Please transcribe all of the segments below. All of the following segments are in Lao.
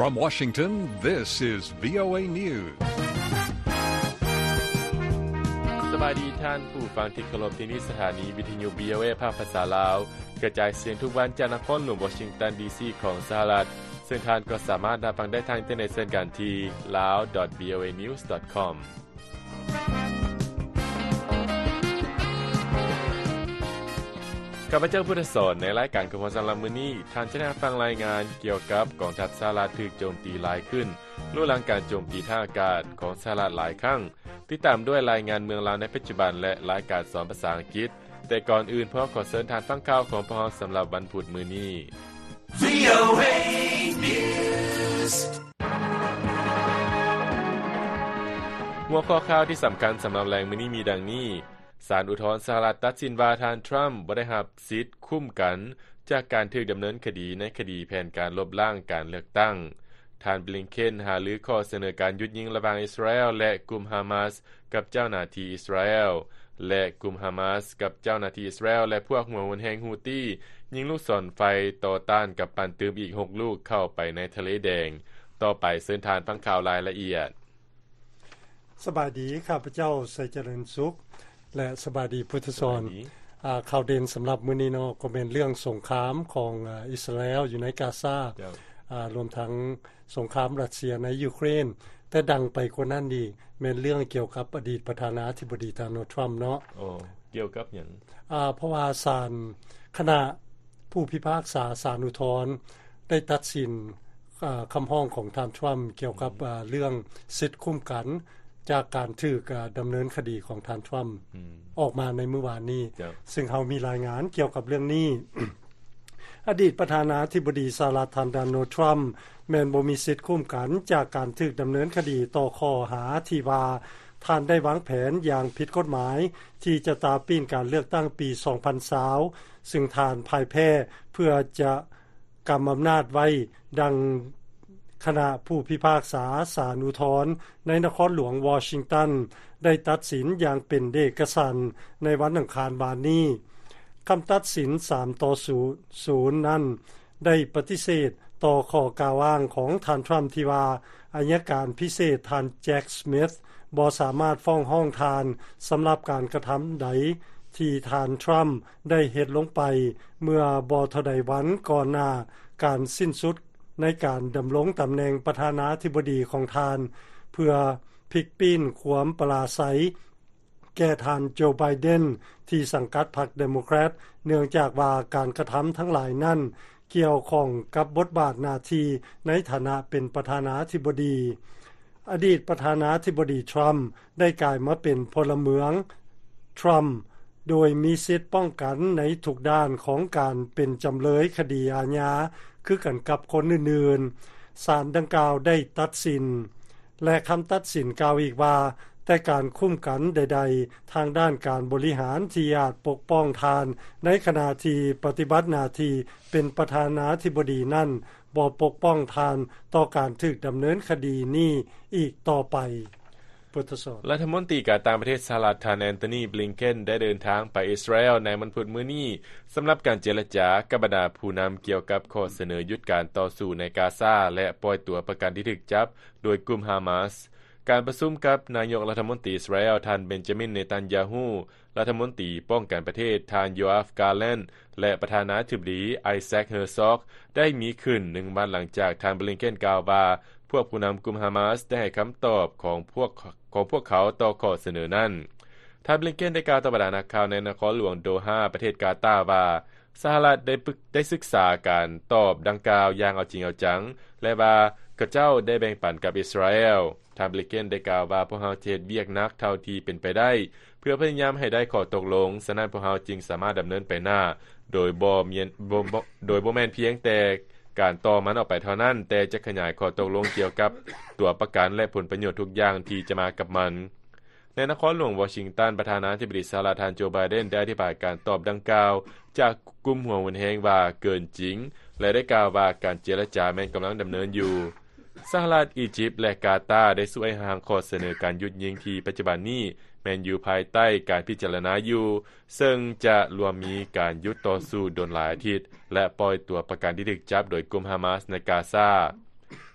From Washington, this is VOA News. ສະບາຍດີທ່ານຜູ້ຟັງທີ່ເຄົາລົບ, ທີ່ນີ້ສະຖານີວິທະຍຸ VOA ພາກພາສາລາວ ກະຈາຍສຽງທຸກວັນຈາກນະຄອນຫຼວງວໍຊິງຕັນ ດີຊີ ຂອງສະຫະລັດ, ເຊິ່ງທ່ານກໍສາມາດຮັບຟັງໄດ້ທາງອິນເຕີເນັດເຊັ່ນກັນທີ່ lawvoanews.com. ຂ້າພະເຈົ້າ ພຸດທະສອນ, ໃນລາຍການຂອງເຮົາສຳລັບມື້ນີ້, ທ່ານຈະໄດ້ຮັບຟັງລາຍງານກ່ຽວກັບກອງທັບສະຫະລັດຖືກໂຈມຕີຫຼາຍຂຶ້ນ, ຫຼູຫຼັງການໂຈມຕີທາງອາກາດຂອງສະຫະລັດຫຼາຍຄັ້ງ, ຕິດຕາມດ້ວຍລາຍງານເມືອງລາວໃນປັດຈຸບັນ ແລະ ລາຍການສອນພາສາອັງກິດ. ແຕ່ກ່ອນອື່ນ, ພວກເຮົາຂໍເຊີນທ່ານຟັງຂ່າວຂອງພວກເຮົາສຳລັບວັນພຸດມື້ນີ້. VOA News. ຫົວຂໍ້ຂ່າວທີ່ສຳຄັນສຳລັບແລງມື້ນີ້ມີດັ່ງນີ້: ສານອຸທອນສະຫະລັດຕັດສິນວ່າທ່ານທຣຳບໍ່ໄດ້ຮັບສິດຄຸ້ມກັນຈາກການຖືກດຳເນີນຄະດີໃນຄະດີແຜນການລົບລ້າງການເລືອກຕັ້ງ. ທ່ານບລິງເຄນຫາລືຂໍ້ສະເໜີການຢຸດຍິງລະຫວ່າງອິດສະຣາແອລ ແລະ ກຸ່ມຮາມາສ ກັບເຈົ້າໜ້າທີ່ອິດສະຣາແອລ ແລະ ກຸ່ມຮາມາສ ກັບເຈົ້າໜ້າທີ່ອິດສະຣາແອລ ແລະ ພວກຫົວຮຸນແຮງຮູ້ຕີ ຍິງລູກສອນໄຟຕໍ່ຕ້ານກຳປັ່ນຕື່ມອີກຫົກລູກເຂົ້າໄປໃນທະເລແດງ. ຕໍ່ໄປເຊີນທ່ານຟັງຂ່າວລາຍລະອຽດ. ສະບາຍດີ, ຂ້າພະເຈົ້າ ໄຊຈະເລີນສຸກ ແລະ ສະບາຍດີ ພຸດທະສອນ. ສະບາຍດີ. ອາ, ຂ່າວເດັ່ນສຳລັບມື້ນີ້ເນາະ ກໍແມ່ນເລື່ອງສົງຄາມຂອງ, ອາ, ອິດສະຣາແອລຢູ່ໃນກາຊາ, ເຈົ້າ. ອາ, ລວມທັງສົງຄາມຣັດເຊຍໃນຢູເຄຣນ. ແຕ່ດັງໄປກວ່ານັ້ນອີກ ແມ່ນເລື່ອງກ່ຽວກັບອະດີດປະທານາທິບໍດີ ໂດນັລ ທຣຳ ເນາະ. ໂອ້ ກ່ຽວກັບຫຍັງ? ອາ, ເພາະວ່າສານ, ຄະນະຜູ້ພິພາກສາສານອຸທອນ ໄດ້ຕັດສິນ, ອາ, ຄຳຮ້ອງຂອງທ່ານທຣຳ ກ່ຽວກັບ, ອາ, ເລື່ອງສິດຄຸ້ມກັນຈາກການຖືກ, ອາ, ດຳເນີນຄະດີຂອງທ່ານທຣຳ ອອກມາໃນມື້ວານນີ້, ເຈົ້າ. ຊຶ່ງເຮົາມີລາຍງານກ່ຽວກັບເລື່ອງນີ້. ອະດີດປະທານາທິບໍດີສະຫະລັດ ທ່ານ ໂດນັລ ທຣຳ ແມ່ນບໍ່ມີສິດຄຸ້ມກັນຈາກການຖືກດຳເນີນຄະດີຕໍ່ຂໍ້ຫາທີ່ວ່າ ທ່ານໄດ້ວາງແຜນຢ່າງຜິດກົດໝາຍທີ່ຈະຕາປີ້ນການເລືອກຕັ້ງປີສອງພັນຊາວ ຊຶ່ງທ່ານພ່າຍແພ້ ເພື່ອຈະກຳອຳນາດໄວ້, ດັ່ງຄະນະຜູ້ພິພາກສາສານອຸທອນໃນນະຄອນຫຼວງວໍຊິງຕັນ ໄດ້ຕັດສິນຢ່າງເປັນເອກະສັນໃນວັນອັງຄານວານນີ້. ຄຳຕັດສິນສາມຕໍ່ສູນນັ້ນ ໄດ້ປະຕິເສດຕໍ່ຂໍ້ກ່າວອ້າງຂອງທ່ານທຣຳທີ່ວ່າ ອັຍການພິເສດທ່ານແຈັກສະມິດ ບໍ່ສາມາດຟ້ອງຮ້ອງທ່ານສຳລັບການກະທຳໃດທີ່ທ່ານທຣຳໄດ້ເຮັດລົງໄປເມື່ອບໍ່ເທົ່າໃດວັນກ່ອນໜ້າການສິ້ນສຸດໃນການດຳລົງຕຳແໜ່ງປະທານາທິບໍດີຂອງທ່ານ ເພື່ອພິກປີ້ນຄວາມປະລາໄຊ ແກ່ທ່ານໂຈ ໄບເດັນ ທີ່ສັງກັດພັກເດໂມແຄຣດ ເນື່ອງຈາກວ່າການກະທຳທັງຫຼາຍນັ້ນກ່ຽວຂ້ອງກັບບົດບາດໜ້າທີ່ໃນຖານະເປັນປະທານາທິບໍດີ. ອະດີດປະທານາທິບໍດີທຣຳໄດ້ກາຍມາເປັນພົນລະເມືອງທຣຳ ໂດຍມີສິດປ້ອງກັນໃນທຸກດ້ານຂອງການເປັນຈຳເລີຍຄະດີອາຍາຄືກັນກັບຄົນອື່ນໆ. ສານດັ່ງກ່າວໄດ້ຕັດສິນ ແລະ ຄຳຕັດສິນກ່າວອີກວ່າ ແຕ່ການຄຸ້ມກັນໃດໆທາງດ້ານການບໍລິຫານທີ່ອາດປົກປ້ອງທ່ານໃນຂະນະທີ່ປະຕິບັດໜ້າທີ່ເປັນປະທານາທິບໍດີນັ້ນ ບໍ່ປົກປ້ອງທ່ານຕໍ່ການຖືກດຳເນີນຄະດີນີ້ອີກຕໍ່ໄປ. ລັດຖະມົນຕີການຕ່າງປະເທດສະຫະລັດ ທ່ານ ແອນໂທນີ ບລິງເຄນ ໄດ້ເດີນທາງໄປອິດສະຣາແອລໃນວັນພຸດມື້ນີ້ ສຳລັບການເຈລະຈາກັບບັນດາຜູ້ນຳກ່ຽວກັບຂໍ້ສະເໜີຢຸດການຕໍ່ສູ້ໃນກາຊາ ແລະ ປ່ອຍຕົວປະກັນທີ່ຖືກຈັບໂດຍກຸ່ມຮາມາສ. ການປະຊຸມກັບນາຍົກລັດຖະມົນຕີອິດສະຣາແອລ ທ່ານ ເບັນຈາມິນ ເນຕັນຢາຮູ້, ລັດຖະມົນຕີປ້ອງກັນປະເທດ ທ່ານ ໂຢອາຟ ກາແລັນ ແລະ ປະທານາທິບໍດີ ໄອແຊັກ ເຮີຊອກ ໄດ້ມີຂຶ້ນໜຶ່ງວັນຫຼັງຈາກທ່ານ ບລິງເຄນ ກ່າວວ່າ ພວກຜູ້ນຳກຸ່ມຮາມາສໄດ້ໃຫ້ຄຳຕອບຂອງພວກ, ຂອງພວກເຂົາຕໍ່ຂໍ້ສະເໜີນັ້ນ. ທ່ານ ບລິງເຄນ ໄດ້ກ່າວຕໍ່ບັນດານັກຂ່າວໃນນະຄອນຫຼວງໂດຮາ ປະເທດກາຕາ ວ່າ ສະຫະລັດໄດ້ປຶກ, ໄດ້ສຶກສາການຕອບດັ່ງກ່າວຢ່າງເອົາຈິງເອົາຈັງ ແລະ ວ່າເຂົາເຈົ້າໄດ້ແບ່ງປັນກັບອິດສະຣາແອລ. ທ່ານ ບລິງເຄນ ໄດ້ກ່າວວ່າ ພວກເຮົາຈະເຮັດວຽກໜັກເທົ່າທີ່ເປັນໄປໄດ້ ເພື່ອພະຍາຍາມໃຫ້ໄດ້ຂໍ້ຕົກລົງ, ສະນັ້ນພວກເຮົາຈຶ່ງສາມາດດຳເນີນໄປໜ້າ ໂດຍບໍ່ແມ່ນ, ບໍ່, ບໍ່, ໂດຍບໍ່ແມ່ນພຽງແຕ່ການຕໍ່ມັນອອກໄປເທົ່ານັ້ນ, ແຕ່ຈະຂະຫຍາຍຂໍ້ຕົກລົງກ່ຽວກັບຕົວປະກັນ ແລະ ຜົນປະໂຫຍດທຸກຢ່າງທີ່ຈະມາກັບມັນ. ໃນນະຄອນຫຼວງວໍຊິງຕັນ, ປະທານາທິບໍດີສະຫະລັດ ທ່ານ ໂຈ ໄບເດັນ ໄດ້ອະທິບາຍການຕອບດັ່ງກ່າວຈາກກຸ່ມຫົວຮຸນແຮງວ່າເກີນຈິງ ແລະ ໄດ້ກ່າວວ່າການເຈລະຈາແມ່ນກຳລັງດຳເນີນຢູ່. ສະຫະລັດ, ອີຢິບ ແລະ ກາຕາ ໄດ້ຊ່ວຍຮ່າງຂໍ້ສະເໜີການຢຸດຍິງທີ່ປັດຈຸບັນນີ້ແມ່ນຢູ່ພາຍໃຕ້ການພິຈາລະນາຢູ່, ເຊິ່ງຈະລວມມີການຢຸດຕໍ່ສູ້ດົນຫຼາຍອາທິດ ແລະ ປ່ອຍຕົວປະກັນທີ່ຖືກຈັບໂດຍກຸ່ມຮາມາສໃນກາຊາ.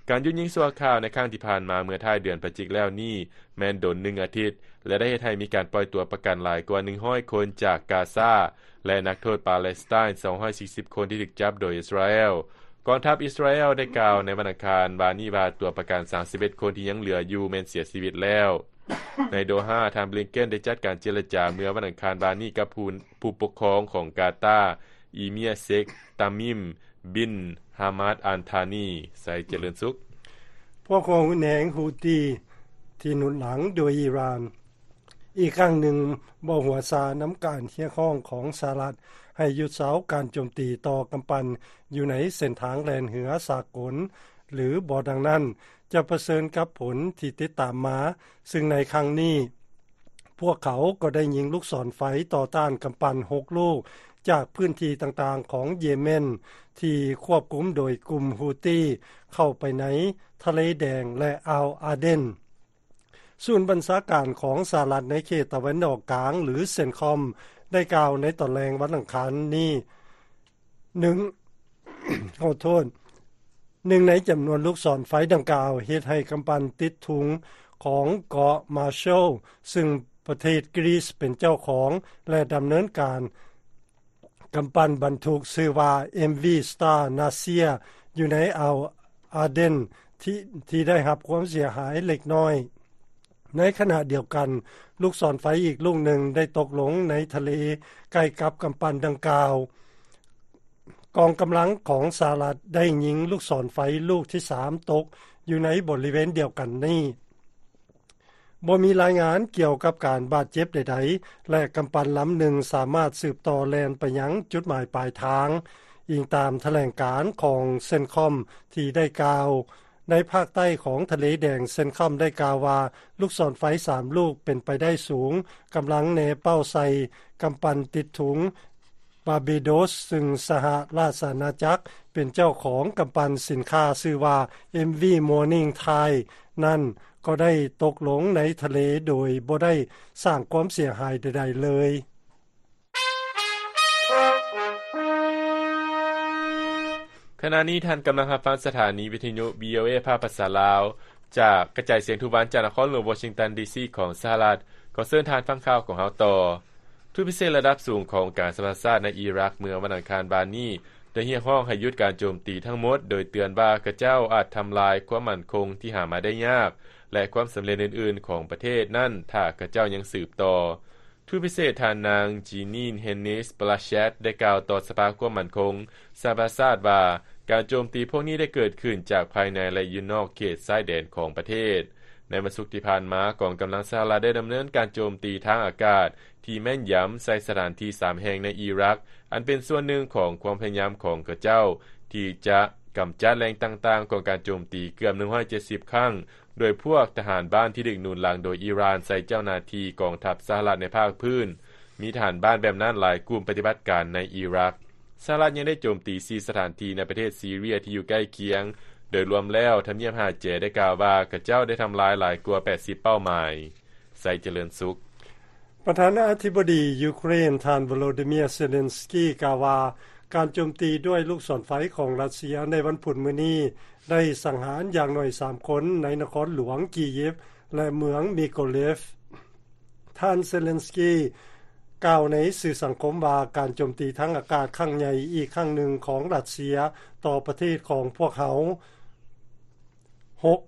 ການຢຸດຍິງຊົ່ວຄາວໃນຄັ້ງທີ່ຜ່ານມາເມື່ອທ້າຍເດືອນພະຈິກແລ້ວນີ້ ແມ່ນດົນໜຶ່ງອາທິດ ແລະ ໄດ້ເຮັດໃຫ້ມີການປ່ອຍຕົວປະກັນຫຼາຍກວ່າໜຶ່ງຮ້ອຍຄົນຈາກກາຊາ ແລະ ນັກໂທດປາເລສໄຕນ໌ສອງຮ້ອຍສີ່ສິບຄົນທີ່ຖືກຈັບໂດຍອິດສະຣາແອລ. ກອງທັບອິດສະຣາແອລໄດ້ກ່າວໃນວັນອັງຄານວານນີ້ວ່າ ຕົວປະກັນສາມສິບເອັດຄົນທີ່ຍັງເຫຼືອຢູ່ແມ່ນເສຍຊີວິດແລ້ວ. ໃນໂດຮາ, ທ່ານບລິງເກັນໄດ້ຈັດການເຈລະຈາເມື່ອວັນອັງຄານວານນີ້ກັບຜູ້ ຜູ້ປົກຄອງຂອງກາຕາ ອີເມຍເຊັກ ຕາມິມ ບິນ ຮາມາດ ອັນທານີ. ໄຊຈະເລີນສຸກ. ພວກຫົວຮຸນແຮງ Houthi ທີ່ໜູນຫຼັງໂດຍອີຣານ ອີກຄັ້ງໜຶ່ງບໍ່ຫົວຊານຳການຮຽກຮ້ອງຂອງສະຫະລັດໃຫ້ຢຸດເຊົາການໂຈມຕີຕໍ່ກຳປັ່ນຢູ່ໃນເສັ້ນທາງແລ່ນເຮືອສາກົນ ຫຼື ບໍ່ດັ່ງນັ້ນ ຈະປະເຊີນກັບຜົນທີ່ຕິດຕາມມາ, ຊຶ່ງໃນຄັ້ງນີ້ ພວກເຂົາກໍໄດ້ຍິງລູກສອນໄຟຕໍ່ຕ້ານກຳປັ່ນຫົກລູກ ຈາກພື້ນທີ່ຕ່າງໆຂອງເຢເມັນ ທີ່ຄວບຄຸມໂດຍກຸ່ມ Houthi ເຂົ້າໄປໃນທະເລແດງ ແລະ ອ່າວອາເດັນ. ສູນບັນຊາການຂອງສະຫະລັດໃນເຂດຕາເວັນອອກກາງ ຫຼື ເຊັນຄອມ ໄດ້ກ່າວໃນຕອນແລງວັນອັງຄານນີ້ ໜຶ່ງ ຂໍໂທດ, ໜຶ່ງໃນຈຳນວນລູກສອນໄຟດັ່ງກ່າວ ເຮັດໃຫ້ກຳປັ່ນຕິດທຸງຂອງເກາະມາແຊວ ຊຶ່ງປະເທດກຣີສເປັນເຈົ້າຂອງ ແລະ ດຳເນີນການ. ກຳປັ່ນບັນທຸກຊື່ວ່າ ເອັມ ວີ Star Nasir ຢູ່ໃນອ່າວອາເດັນ ທີ່ ທີ່ໄດ້ຮັບຄວາມເສຍຫາຍເລັກນ້ອຍ. ໃນຂະນະດຽວກັນ, ລູກສອນໄຟອີກລູກໜຶ່ງໄດ້ຕົກລົງໃນທະເລໃກ້ກັບກຳປັ່ນດັ່ງກ່າວ. ກອງກຳລັງຂອງສະຫະລັດໄດ້ຍິງລູກສອນໄຟລູກທີສາມຕົກຢູ່ໃນບໍລິເວນດຽວກັນນີ້. ບໍ່ມີລາຍງານກ່ຽວກັບການບາດເຈັບໃດໆ ແລະ ກຳປັ່ນລຳໜຶ່ງສາມາດສືບຕໍ່ແລ່ນໄປຍັງຈຸດໝາຍປາຍທາງ, ອີງຕາມຖະແຫຼງການຂອງເຊັນຄອມທີ່ໄດ້ກ່າວ. ໃນພາກໃຕ້ຂອງທະເລແດງ, ເຊັນຄອມໄດ້ກ່າວວ່າ ລູກສອນໄຟສາມລູກເປັນໄປໄດ້ສູງກຳລັງແນເປົ້າໃສ່ກຳປັ່ນຕິດທຸງ ບາເບໂດສ ຊຶ່ງສະຫະລາຊະອານາຈັກເປັນເຈົ້າຂອງ. ກຳປັ່ນສິນຄ້າຊື່ວ່າ ເອັມ ວີ Morning Tide ນັ້ນກໍໄດ້ຕົກລົງໃນທະເລໂດຍບໍ່ໄດ້ສ້າງຄວາມເສຍຫາຍໃດໆເລີຍ. ຂະນະນີ້ທ່ານກຳລັງຮັບຟັງສະຖານີວິທະຍຸ ວີ ໂອ ເອ ພາກພາສາລາວ ຈາກກະຈາຍສຽງທຸກວັນຈາກນະຄອນຫຼວງວໍຊິງຕັນ ດີ ຊີ ຂອງສະຫະລັດ. ຂໍເຊີນທ່ານຟັງຂ່າວຂອງເຮົາຕໍ່. ທູດພິເສດລະດັບສູງຂອງອົງການສະຫະປະຊາຊາດໃນອີຣັກເມື່ອວັນອັງຄານວານນີ້ ໄດ້ຮຽກຮ້ອງໃຫ້ຢຸດການໂຈມຕີທັງໝົດ, ໂດຍເຕືອນວ່າຂະເຈົ້າອາດທຳລາຍຄວາມໝັ້ນຄົງທີ່ຫາມາໄດ້ຍາກ ແລະ ຄວາມສຳເລັດອື່ນໆຂອງປະເທດນັ້ນ ຖ້າຂະເຈົ້າຍັງສືບຕໍ່. ທູດພິເສດທ່ານນາງ Jeanine Hennis-Plasschaert ໄດ້ກ່າວຕໍ່ສະພາຄວາມໝັ້ນຄົງສະຫະປະຊາຊາດວ່າ ການໂຈມຕີພວກນີ້ໄດ້ເກີດຂຶ້ນຈາກພາຍໃນ ແລະ ຢູ່ນອກເຂດຊາຍແດນຂອງປະເທດ. ໃນວັນສຸກທີ່ຜ່ານມາ, ກອງກຳລັງສະຫະລັດໄດ້ດຳເນີນການໂຈມຕີທາງອາກາດທີ່ແມ່ນຢຳໃສ່ສະຖານທີ່ສາມແຫ່ງໃນອີຣັກ, ອັນເປັນສ່ວນໜຶ່ງຂອງຄວາມພະຍາຍາມຂອງຂະເຈົ້າທີ່ຈະກຳຈັດແຫຼ່ງຕ່າງໆຂອງການໂຈມຕີເກືອບໜຶ່ງຮ້ອຍເຈັດສິບຄັ້ງ, ໂດຍພວກທະຫານບ້ານທີ່ຖືກໜູນຫຼັງໂດຍອີຣານໃສ່ເຈົ້າໜ້າທີ່ກອງທັບສະຫະລັດໃນພາກພື້ນ. ມີທະຫານບ້ານແບບນັ້ນຫຼາຍກຸ່ມປະຕິບັດການໃນອີຣັກ. ສະຫະລັດຍັງໄດ້ໂຈມຕີສີ່ສະຖານທີ່ໃນປະເທດຊີເຣຍທີ່ຢູ່ໃກ້ຄຽງ. ໂດຍລວມແລ້ວ, ທຳນຽບຫາແຈໄດ້ກ່າວວ່າ ຂະເຈົ້າໄດ້ທຳລາຍຫຼາຍກວ່າແປດສິບເປົ້າໝາຍ. ໄຊຈະເລີນສຸກ. ປະທານາທິບໍດີຢູເຄຣນ ທ່ານ ໂວໂລດີເມຍ ເຊເລັນສກີ ກ່າວວ່າ ການໂຈມຕີດ້ວຍລູກສອນໄຟຂອງຣັດເຊຍໃນວັນພຸດມື້ນີ້ ໄດ້ສັງຫານຢ່າງໜ້ອຍສາມຄົນໃນນະຄອນຫຼວງກີຢິບ ແລະ ເມືອງມີໂກເລຟ. ທ່ານເຊເລັນສກີກ່າວໃນສື່ສັງຄົມວ່າ ການໂຈມຕີທາງອາກາດຄັ້ງໃຫຍ່ອີກຄັ້ງໜຶ່ງຂອງຣັດເຊຍຕໍ່ປະເທດຂອງພວກເຮົາ ຫົກ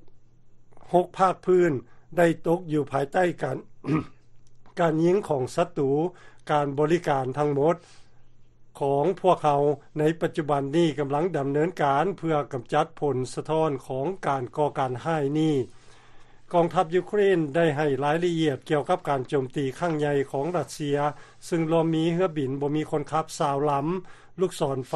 ຫົກພາກພື້ນໄດ້ຕົກຢູ່ພາຍໃຕ້ການ ການຍິງຂອງສັດຕູ. ການບໍລິການທັງໝົດຂອງພວກເຮົາໃນປັດຈຸບັນນີ້ກຳລັງດຳເນີນການເພື່ອກຳຈັດຜົນສະທ້ອນຂອງການກໍ່ການຮ້າຍນີ້. ກອງທັບຢູເຄຣນໄດ້ໃຫ້ລາຍລະອຽດກ່ຽວກັບການໂຈມຕີຄັ້ງໃຫຍ່ຂອງຣັດເຊຍ, ຊຶ່ງລວມມີເຮືອບິນບໍ່ມີຄົນຂັບຊາວລຳ, ລູກສອນໄຟ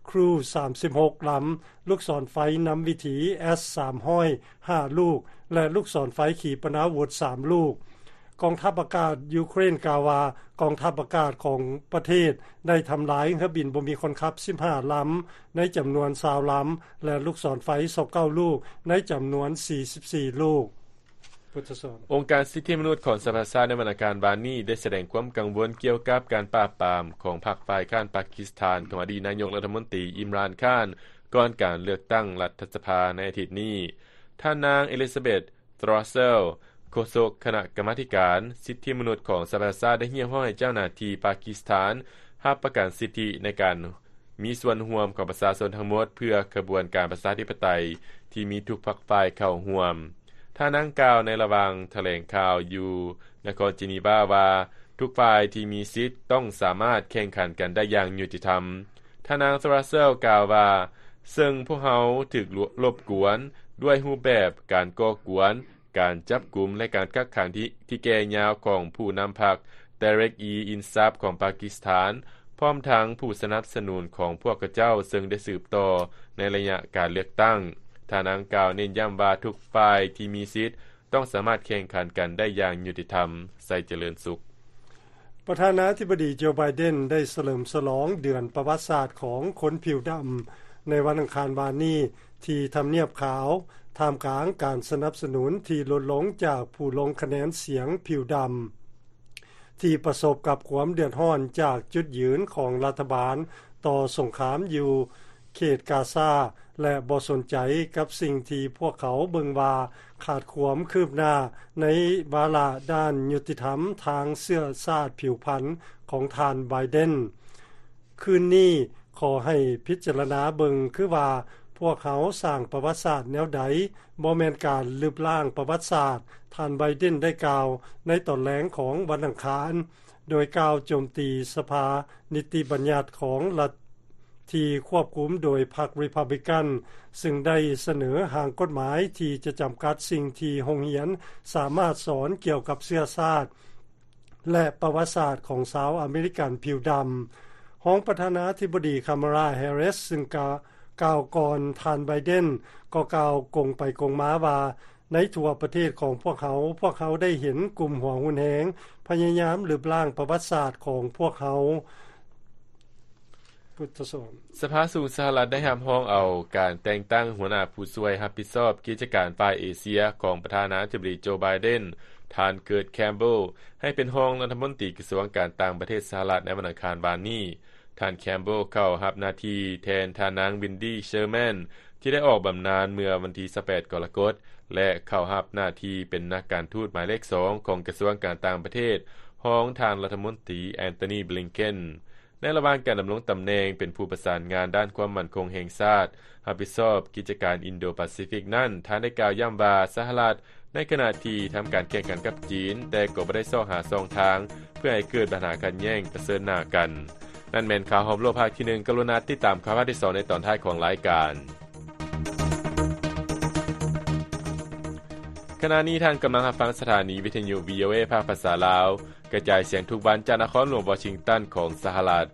Crew ສາມສິບຫົກລຳ, ລູກສອນໄຟນຳວິຖີ ເອສ ສາມຮ້ອຍຫ້າລູກ ແລະ ລູກສອນໄຟຂີປະນາວຸດສາມລູກ. ກອງທັບອາກາດຢູເຄຣນກ່າວວ່າ ກອງທັບອາກາດຂອງປະເທດໄດ້ທຳລາຍເຮືອບິນບໍ່ມີຄົນຂັບສິບຫ້າລຳໃນຈຳນວນຊາວລຳ ແລະ ລູກສອນໄຟຊາວເກົ້າລູກໃນຈຳນວນສີ່ສິບສີ່ລູກ. ອົງການສິດທິມະນຸດຂອງສະຫະປະຊາຊາດໃນວັນອັງຄານວານນີ້ໄດ້ສະແດງຄວາມກັງວົນກ່ຽວກັບການປາບປາມຂອງພັກຝ່າຍຄ້ານປາກິສຖານຂອງອະດີດນາຍົກລັດຖະມົນຕີ ອິມຣານ ຄານ ກ່ອນການເລືອກຕັ້ງລັດຖະສະພາໃນອາທິດນີ້. ທ່ານນາງ Elizabeth Throssell ໂຄສົກຄະນະກຳມາທິການສິດທິມະນຸດຂອງສະຫະປະຊາຊາດ ໄດ້ຮຽກຮ້ອງໃຫ້ເຈົ້າໜ້າທີ່ປາກິສຖານຮັບປະກັນສິດທິໃນການມີສ່ວນຮ່ວມຂອງປະຊາຊົນທັງໝົດ ເພື່ອຂະບວນການປະຊາທິປະໄຕທີ່ມີທຸກພັກຝ່າຍເຂົ້າຮ່ວມ. ທ່ານນາງກ່າວໃນລະຫວ່າງຖະແຫຼງຂ່າວຢູ່ນະຄອນເຈນີວາວ່າ ທຸກຝ່າຍທີ່ມີສິດຕ້ອງສາມາດແຂ່ງຂັນກັນໄດ້ຢ່າງຍຸຕິທຳ. ທ່ານນາງ Throssell ກ່າວວ່າ ເຊິ່ງພວກເຮົາຖືກລົບກວນດ້ວຍຮູບແບບການກໍ່ກວນ, ການຈັບກຸມ ແລະ ການກັກຂັງທີ່ ທີ່ແກ່ຍາວຂອງຜູ້ນຳພັກ Tehreek e Insaf ຂອງປາກິສຖານ, ພ້ອມທັງຜູ້ສະໜັບສະໜູນຂອງພວກເຂົາເຈົ້າ ເຊິ່ງໄດ້ສືບຕໍ່ໃນໄລຍະການເລືອກຕັ້ງ. ທ່ານນາງກ່າວເນັ້ນຢ້ຳວ່າ ທຸກຝ່າຍທີ່ມີສິດຕ້ອງສາມາດແຂ່ງຂັນກັນໄດ້ຢ່າງຍຸຕິທຳ. ໄຊຈະເລີນສຸກ. ປະທານາທິບໍດີ ໂຈ ໄບເດນ ໄດ້ສະເຫຼີມສະຫຼອງເດືອນປະຫວັດສາດຂອງຄົນຜິວດຳ ໃນວັນອັງຄານວານນີ້ ທີ່ທຳນຽບຂາວ, ທ່າມກາງການສະໜັບສະໜູນທີ່ຫຼຸດລົງຈາກຜູ້ລົງຄະແນນສຽງຜິວດຳ ທີ່ປະສົບກັບຄວາມເດືອດຮ້ອນຈາກຈຸດຢືນຂອງລັດຖະບານຕໍ່ສົງຄາມຢູ່ເຂດກາຊາ ແລະ ບໍ່ສົນໃຈກັບສິ່ງທີ່ພວກເຂົາເບິ່ງວ່າຂາດຄວາມຄືບໜ້າໃນວາລະດ້ານຍຸຕິທຳທາງເຊື້ອຊາດຜິວພັນຂອງທ່ານ ໄບເດນ. ຄືນນີ້ຂໍໃຫ້ພິຈາລະນາເບິ່ງຄືວ່າພວກເຮົາສ້າງປະຫວັດສາດແນວໃດ, ບໍ່ແມ່ນການລຶບລ້າງປະຫວັດສາດ, ທ່ານ ໄບເດນ ໄດ້ກ່າວໃນຕອນແລງຂອງວັນອັງຄານ ໂດຍກ່າວໂຈມຕີສະພານິຕິບັນຍັດຂອງລັດທີ່ຄວບຄຸມໂດຍພັກ Republican ຊຶ່ງໄດ້ສະເໜີຮ່າງກົດໝາຍທີ່ຈະຈຳກັດສິ່ງທີ່ໂຮງຮຽນສາມາດສອນກ່ຽວກັບເຊື້ອຊາດ ແລະ ປະຫວັດສາດຂອງຊາວອາເມລິກັນຜິວດຳ. ຮອງປະທານາທິບໍດີ Kamala Harris ຊຶ່ງກ່າ ກ່າວກ່ອນທ່ານ ໄບເດນ ກໍກ່າວກົງໄປກົງມາວ່າ ໃນທົ່ວປະເທດຂອງພວກເຮົາ, ພວກເຮົາໄດ້ເຫັນກຸ່ມຫົວຮຸນແຮງພະຍາຍາມລຶບລ້າງປະຫວັດສາດຂອງພວກເຮົາ. ສະພາສູງສະຫະລັດໄດ້ຮັບຮອງເອົາການແຕ່ງຕັ້ງຫົວໜ້າຜູ້ຊ່ວຍຮັບຜິດຊອບກິດຈະການຝ່າຍເອເຊຍຂອງປະທານາທິບໍດີ ໂຈ ໄບເດນ, ທ່ານ Kurt Campbell ໃຫ້ເປັນຮອງລັດຖະມົນຕີກະຊວງການຕ່າງປະເທດສະຫະລັດໃນວັນອັງຄານວານນີ້. ທ່ານ Campbell ເຂົ້າຮັບໜ້າທີ່ແທນທ່ານນາງ Wendy Sherman ທີ່ໄດ້ອອກບຳນານເມື່ອວັນທີຊາວແປດ ກໍລະກົດ ແລະ ເຂົ້າຮັບໜ້າທີ່ເປັນນັກການທູດໝາຍເລກສອງຂອງກະຊວງການຕ່າງປະເທດ ຮອງທ່ານລັດຖະມົນຕີ Antony Blinken. ໃນລະຫວ່າງການດຳລົງຕຳແໜ່ງເປັນຜູ້ປະສານງານດ້ານຄວາມໝັ້ນຄົງແຫ່ງຊາດ ຮັບຜິດຊອບກິດຈະການອິນໂດປາຊີຟິກນັ້ນ, ທ່ານໄດ້ກ່າວຢ້ຳວ່າ ສະຫະລັດໃນຂະນະທີ່ທຳການແຂ່ງຂັນກັບຈີນ, ແຕ່ກໍບໍ່ໄດ້ຊອກຫາຊ່ອງທາງເພື່ອໃຫ້ເກີດບັນຫາຂັດແຍ່ງປະເຊີນໜ້າກັນ. ນັ້ນແມ່ນຂ່າວຮອບໂລກພາກທີໜຶ່ງ, ກະລຸນາຕິດຕາມຂ່າວພາກທີສອງໃນຕອນທ້າຍຂອງລາຍການ. ຂະນະນີ້ທ່ານກຳລັງຮັບຟັງສະຖານີວິທະຍຸ ວີໂອເອ ພາກພາສາລາວ ກະຈາຍສຽງທຸກວັນຈາກນະຄອນຫຼວງວໍຊິງຕັນຂອງສະຫະລັດ.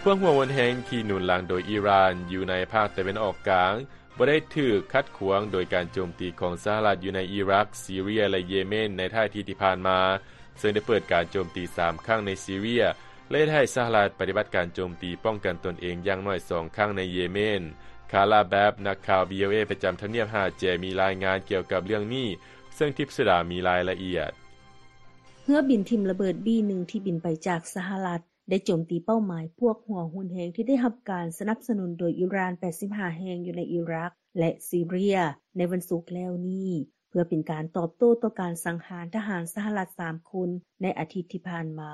ພວກຫົວຮຸນແຮງທີ່ໜູນຫຼັງໂດຍອີຣານຢູ່ໃນພາກຕາເວັນອອກກາງ ບໍ່ໄດ້ຖືກຂັດຂວາງໂດຍການໂຈມຕີຂອງສະຫະລັດຢູ່ໃນອີຣັກ, ຊີເຣຍ ແລະ ເຢເມນໃນທ້າຍອາທິດທີ່ຜ່ານມາ, ເຊິ່ງໄດ້ເປີດການໂຈມຕີສາມຄັ້ງໃນຊີເຣຍ ແລະ ເຮັດໃຫ້ສະຫະລັດປະຕິບັດການໂຈມຕີປ້ອງກັນຕົນເອງຢ່າງໜ້ອຍສອງຄັ້ງໃນເຢເມນ. ຄາລາ ແບັບ ນັກຂ່າວ ວີໂອເອ ປະຈຳທຳນຽບຫາດແຈ ມີລາຍງານກ່ຽວກັບເລື່ອງນີ້, ເຊິ່ງທິບສຸດາມີລາຍລະອຽດ. ເຮືອບິນຖິ້ມລະເບີດ ບີ ໜຶ່ງ ທີ່ບິນໄປຈາກສະຫະລັດ ໄດ້ໂຈມຕີເປົ້າໝາຍພວກຫົວຮຸນແຮງທີ່ໄດ້ຮັບການສະໜັບສະໜູນໂດຍອີຣານ ແປດສິບຫ້າ ແຫ່ງຢູ່ໃນອີຣັກ ແລະ ຊີເຣຍ ໃນວັນສຸກແລ້ວນີ້ ເພື່ອເປັນການຕອບໂຕ້ຕໍ່ການສັງຫານທະຫານສະຫະລັດສາມຄົນໃນອາທິດທີ່ຜ່ານມາ.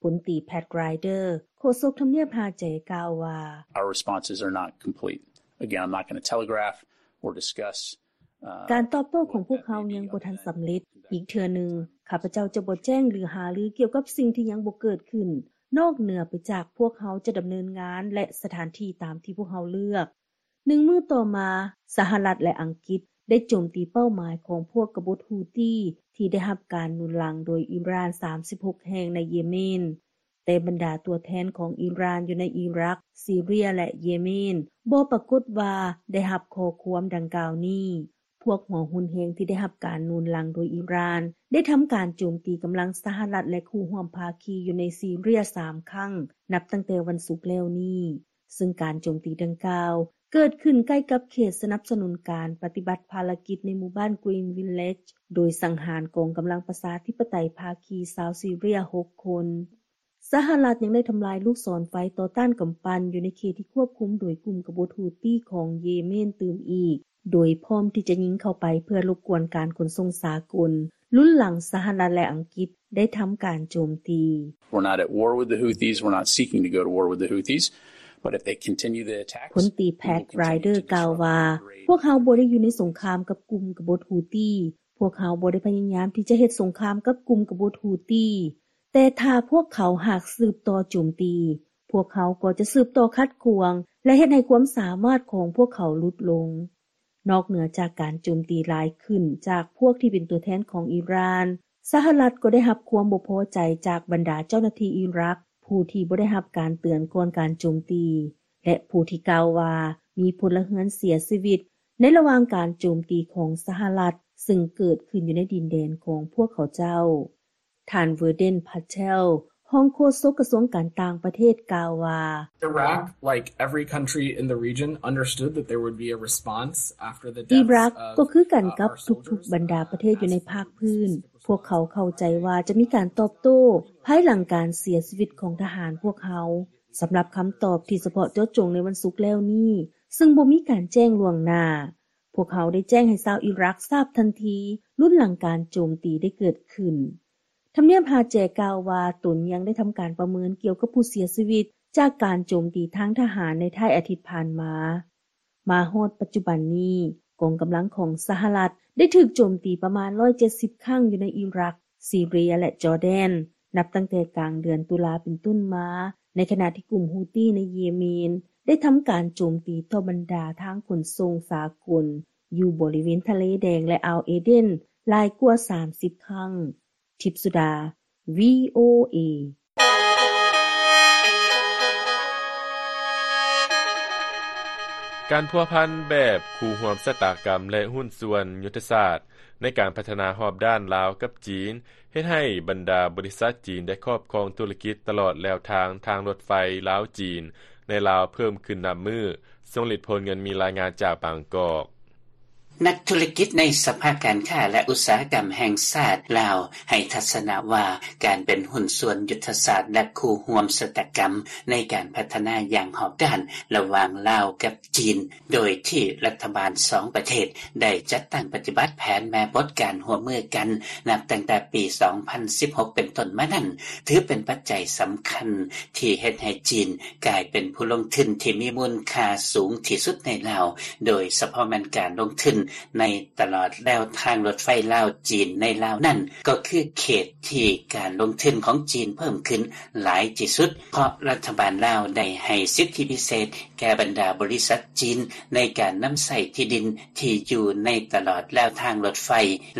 ພົນຕີ ແພັດ ຣາຍເດີ ໂຄສົກທຳນຽບຫາດແຈ ກ່າວວ່າ Our responses are not complete. Again, I'm not gonna telegraph or discuss ການຕອບໂຕ້ຂອງພວກເຮົາຍັງບໍ່ທັນສຳເລັດ. ອີກເທື່ອໜຶ່ງ, ຂ້າພະເຈົ້າຈະບໍ່ແຈ້ງ ຫຼື ຫາລືກ່ຽວກັບສິ່ງທີ່ຍັງບໍ່ເກີດຂຶ້ນ, ນອກເໜືອໄປຈາກພວກເຮົາຈະດຳເນີນງານ ແລະ ສະຖານທີ່ຕາມທີ່ພວກເຮົາເລືອກ. ໜຶ່ງມື້ຕໍ່ມາ, ສະຫະລັດ ແລະ ອັງກິດໄດ້ໂຈມຕີເປົ້າໝາຍຂອງພວກກະບົດຮູ້ຕີ ທີ່ໄດ້ຮັບການໜູນຫຼັງໂດຍອີຣານ ສາມສິບຫົກ ແຫ່ງໃນເຢເມນ. ແຕ່ບັນດາຕົວແທນຂອງອີຣານຢູ່ໃນອີຣັກ, ຊີເຣຍ ແລະ ເຢເມນ ບໍ່ປາກົດວ່າໄດ້ຮັບຂໍ້ຄວາມດັ່ງກ່າວນີ້. ພວກຫົວຮຸນແຮງທີ່ໄດ້ຮັບການໜູນຫຼັງໂດຍອີຣານ ໄດ້ທຳການໂຈມຕີກຳລັງສະຫະລັດ ແລະ ຄູ່ຮ່ວມພາຄີຢູ່ໃນຊີເຣຍສາມຄັ້ງ ນັບຕັ້ງແຕ່ວັນສຸກແລ້ວນີ້, ເຊິ່ງການໂຈມຕີດັ່ງກ່າວເກີດຂຶ້ນໃກ້ກັບເຂດສະໜັບສະໜູນການປະຕິບັດພາລະກິດໃນໝູ່ບ້ານ Green Village ໂດຍສັງຫານກອງກຳລັງປະຊາທິປະໄຕພາຄີຊາວຊີເຣຍຫົກຄົນ. ສະຫະລັດຍັງໄດ້ທຳລາຍລູກສອນໄຟຕໍ່ຕ້ານກຳປັ່ນຢູ່ໃນເຂດທີ່ຄວບຄຸມໂດຍກຸ່ມກະບົດຮູ້ຕີຂອງເຢເມນຕື່ມອີກ, ໂດຍພ້ອມທີ່ຈະຍິງເຂົ້າໄປເພື່ອລົບກວນການຂົນສົ່ງສາກົນ. ລຸນຫຼັງສະຫະລັດ ແລະ ອັງກິດໄດ້ທຳການໂຈມຕີ. We're not at war with the Houthis. We're not seeking to go to war with the Houthis. But if they continue the attacks, ພົນຕີ Pat Ryder ກ່າວວ່າ, ພວກເຮົາບໍ່ໄດ້ຢູ່ໃນສົງຄາມກັບກຸ່ມກະບົດຮູ້ຕີ. ພວກເຮົາບໍ່ໄດ້ພະຍາຍາມທີ່ຈະເຮັດສົງຄາມກັບກຸ່ມກະບົດຮູ້ຕີ. ແຕ່ຖ້າພວກເຂົາຫາກສືບຕໍ່ໂຈມຕີ, ພວກເຮົາກໍຈະສືບຕໍ່ຂັດຂວາງ ແລະ ເຮັດໃຫ້ຄວາມສາມາດຂອງພວກເຂົາຫຼຸດລົງ. ນອກເໜືອຈາກການໂຈມຕີຫຼາຍຂຶ້ນຈາກພວກທີ່ເປັນຕົວແທນຂອງອີຣານ, ສະຫະລັດກໍໄດ້ຮັບຄວາມບໍ່ພໍໃຈຈາກບັນດາເຈົ້າໜ້າທີ່ອີຣັກ ຜູ້ທີ່ບໍ່ໄດ້ຮັບການເຕືອນກ່ອນການໂຈມຕີ ແລະ ຜູ້ທີ່ກ່າວວ່າມີພົນລະເຮືອນເສຍຊີວິດໃນລະຫວ່າງການໂຈມຕີຂອງສະຫະລັດ ເຊິ່ງເກີດຂຶ້ນຢູ່ໃນດິນແດນຂອງພວກເຂົາເຈົ້າ. ທ່ານ Vedant Patel, ຮອງໂຄສົກກະຊວງການຕ່າງປະເທດ ກ່າວວ່າ, Iraq, like every country in the region, understood that there would be a response after the deaths of, ອີຣັກ uh, ກໍຄືກັນກັບທຸກໆບັນດາປະເທດຢູ່ໃນພາກພື້ນ. ພວກເຂົາເຂົ້າໃຈວ່າຈະມີການຕອບໂຕ້ພາຍຫຼັງການເສຍຊີວິດຂອງທະຫານພວກເຮົາ. ສຳລັບຄຳຕອບທີ່ສະເພາະເຈາະຈົງໃນວັນສຸກແລ້ວນີ້, ເຊິ່ງບໍ່ມີການແຈ້ງລ່ວງໜ້າ, ພວກເຮົາໄດ້ແຈ້ງໃຫ້ຊາວອີຣັກຊາບທັນທີ ລຸນຫຼັງການໂຈມຕີໄດ້ເກີດຂຶ້ນ. ທຳນຽບຮາແຈກ່າວວ່າ ຕົນຍັງໄດ້ທຳການປະເມີນກ່ຽວກັບຜູ້ເສຍຊີວິດຈາກການໂຈມຕີທາງທະຫານໃນທ້າຍອາທິດຜ່ານມາ. ມາຮອດປັດຈຸບັນນີ້, ກອງກຳລັງຂອງສະຫະລັດໄດ້ຖືກໂຈມຕີປະມານຮ້ອຍເຈັດສິບຄັ້ງຢູ່ໃນອີຣັກ, ຊີເຣຍ ແລະ ຈໍແດນ, ນັບຕັ້ງແຕ່ກາງເດືອນຕຸລາເປັນຕົ້ນມາ, ໃນຂະນະທີ່ກຸ່ມຮູ້ຕີໃນເຢເມນໄດ້ທຳການໂຈມຕີຕໍ່ບັນດາທາງຂົນສົ່ງສາກົນຢູ່ບໍລິເວນທະເລແດງ ແລະ ອ່າວເອເດນຫຼາຍກວ່າສາມສິບຄັ້ງ. ທິບສຸດາ ວີໂອເອ. ການພົວພັນແບບຄູ່ຮ່ວມຊະຕາກຳ ແລະ ຫຸ້ນສ່ວນຍຸດທະສາດໃນການພັດທະນາຮອບດ້ານລາວກັບຈີນ ເຮັດໃຫ້ບັນດາບໍລິສັດຈີນໄດ້ຄອບຄອງທຸລະກິດຕະຫຼອດແລວທາງທາງລົດໄຟລາວ-ຈີນໃນລາວເພີ່ມຂຶ້ນນັບມື້. ຊົງລິດ ໂພນເງິນ ມີລາຍງານຈາກບາງກອກ. ນັກທຸລະກິດໃນສະພາການຄ້າ ແລະ ອຸດສາຫະກຳແຫ່ງຊາດລາວ ໃຫ້ທັດສະນະວ່າ ການເປັນຫຸ້ນສ່ວນຍຸດທະສາດ ແລະ ຄູ່ຮ່ວມຊະຕາກຳໃນການພັດທະນາຢ່າງຮອບດ້ານລະຫວ່າງລາວກັບຈີນ, ໂດຍທີ່ລັດຖະບານສອງປະເທດໄດ້ຈັດຕັ້ງປະຕິບັດແຜນແມ່ບົດການຮ່ວມມືກັນ ນັບຕັ້ງແຕ່ປີສອງພັນສິບຫົກເປັນຕົ້ນມານັ້ນ, ຖືເປັນປັດໄຈສຳຄັນທີ່ເຮັດໃຫ້ຈີນກາຍເປັນຜູ້ລົງທຶນທີ່ມີມູນຄ່າສູງທີ່ສຸດໃນລາວ, ໂດຍສະເພາະແມ່ນການລົງທຶນໃນຕະຫຼອດແລວທາງລົດໄຟລາວ-ຈີນໃນລາວນັ້ນ ກໍຄືເຂດທີ່ການລົງທຶນຂອງຈີນເພີ່ມຂຶ້ນຫຼາຍທີ່ສຸດ, ເພາະລັດຖະບານລາວໄດ້ໃຫ້ສິດທິພິເສດແກ່ບັນດາບໍລິສັດຈີນໃນການນຳໃຊ້ທີ່ດິນທີ່ຢູ່ໃນຕະຫຼອດແລວທາງລົດໄຟ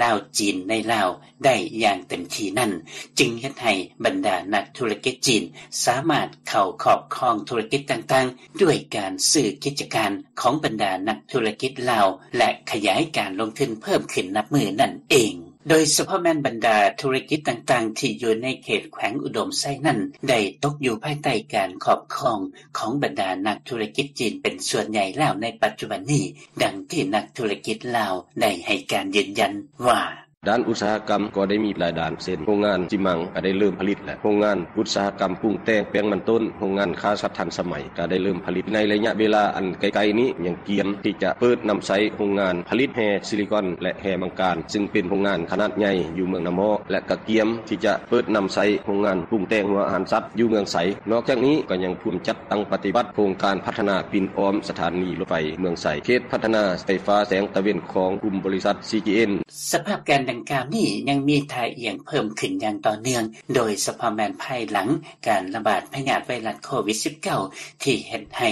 ລາວ-ຈີນໃນລາວ ໄດ້ຢ່າງເຕັມທີ່ນັ້ນ, ຈຶ່ງເຮັດໃຫ້ບັນດານັກທຸລະກິດຈີນສາມາດເຂົ້າຄອບຄອງທຸລະກິດຕ່າງໆ ດ້ວຍການຊື້ກິດຈະການຂອງບັນດານັກທຸລະກິດລາວ ແລະ ຂະຫຍາຍການລົງທຶນເພີ່ມຂຶ້ນນັບມື້ນັ້ນເອງ. ໂດຍສະເພາະແມ່ນບັນດາທຸລະກິດຕ່າງໆ ທີ່ຢູ່ໃນເຂດແຂວງອຸດົມໄຊນັ້ນ ໄດ້ຕົກຢູ່ພາຍໃຕ້ການຄອບຄອງຂອງບັນດານັກທຸລະກິດຈີນເປັນສ່ວນໃຫຍ່ແລ້ວໃນປັດຈຸບັນນີ້, ດັ່ງທີ່ນັກທຸລະກິດລາວໄດ້ໃຫ້ການຢືນຢັນວ່າ, ດ້ານອຸດສາຫະກຳກໍໄດ້ມີຫຼາຍດ້ານ ເຊັ່ນ ໂຮງງານຊີມັງກໍໄດ້ເລີ່ມຜະລິດແລ້ວ, ໂຮງງານອຸດສາຫະກຳປຸງແຕ່ງແປ້ງມັນຕົ້ນ, ໂຮງງານຄ້າສັດທັນສະໄໝກໍໄດ້ເລີ່ມຜະລິດ. ໃນໄລຍະເວລາອັນໃກ້ໆນີ້ຍັງກຽມທີ່ຈະເປີດນຳໃຊ້ໂຮງງານຜະລິດແຮ່ຊິລິຄອນ ແລະ ແຮ່ມັງການ, ຊຶ່ງເປັນໂຮງງານຂະໜາດໃຫຍ່ຢູ່ເມືອງນາໝໍ້, ແລະ ກໍກຽມທີ່ຈະເປີດນຳໃຊ້ໂຮງງານປຸງແຕ່ງຫົວອາຫານສັດຢູ່ເມືອງໄຊ. ນອກຈາກນີ້ກໍຍັງພວມຈັດຕັ້ງປະຕິບັດໂຄງການພັດທະນາປິ່ນອ້ອມສະຖານີລົດໄຟເມືອງໄຊ, ເຂດພັດທະນາໄຟຟ້າແສງຕາເວັນຂອງກຸ່ມບໍລິສັດ ຊີຈີເອັນ. ສະພາບການດັ່ງກ່າວນີ້ຍັງມີທ່າອ່ຽງເພີ່ມຂຶ້ນຢ່າງຕໍ່ເນື່ອງ, ໂດຍສະເພາະແມ່ນພາຍຫຼັງການລະບາດພະຍາດໄວຣັສໂຄວິດສິບເກົ້າ ທີ່ເຮັດໃຫ້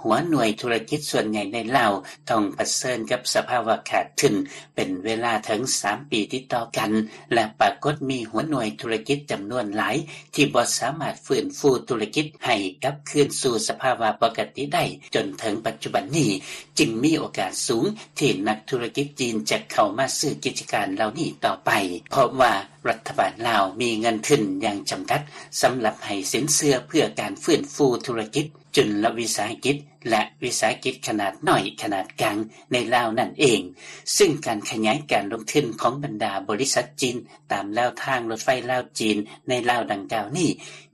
ຫົວໜ່ວຍທຸລະກິດສ່ວນໃຫຍ່ໃນລາວຕ້ອງປະເຊີນກັບສະພາວະຂາດທຶນເປັນເວລາເຖິງສາມປີຕິດຕໍ່ກັນ ແລະ ປາກົດມີຫົວໜ່ວຍທຸລະກິດຈຳນວນຫຼາຍ ທີ່ບໍ່ສາມາດຟື້ນຟູທຸລະກິດໃຫ້ກັບຄືນສູ່ສະພາວະປົກກະຕິໄດ້ຈົນເຖິງປັດຈຸບັນນີ້, ຈຶ່ງມີໂອກາດສູງທີ່ນັກທຸລະກິດຈີນຈະເຂົ້າມາຊື້ກິດຈະການເຫຼົ່ານີ້ຕໍ່ໄປ, ເພາະວ່າລັດຖະບານລາວມີເງິນທຶນຢ່າງຈຳກັດສຳລັບໃຫ້ສິນເຊື່ອເພື່ອການຟື້ນຟູທຸລະກິດ ຈຸນລະວິສາຫະກິດ ແລະ ວິສາຫະກິດຂະໜາດນ້ອຍ, ຂະໜາດກາງໃນລາວນັ້ນເອງ, ຊຶ່ງການຂະຫຍາຍການລົງທຶນຂອງບັນດາບໍລິສັດຈີນຕາມແລວທາງລົດໄຟລາວ-ຈີນໃນລາວດັ່ງກ່າວນີ້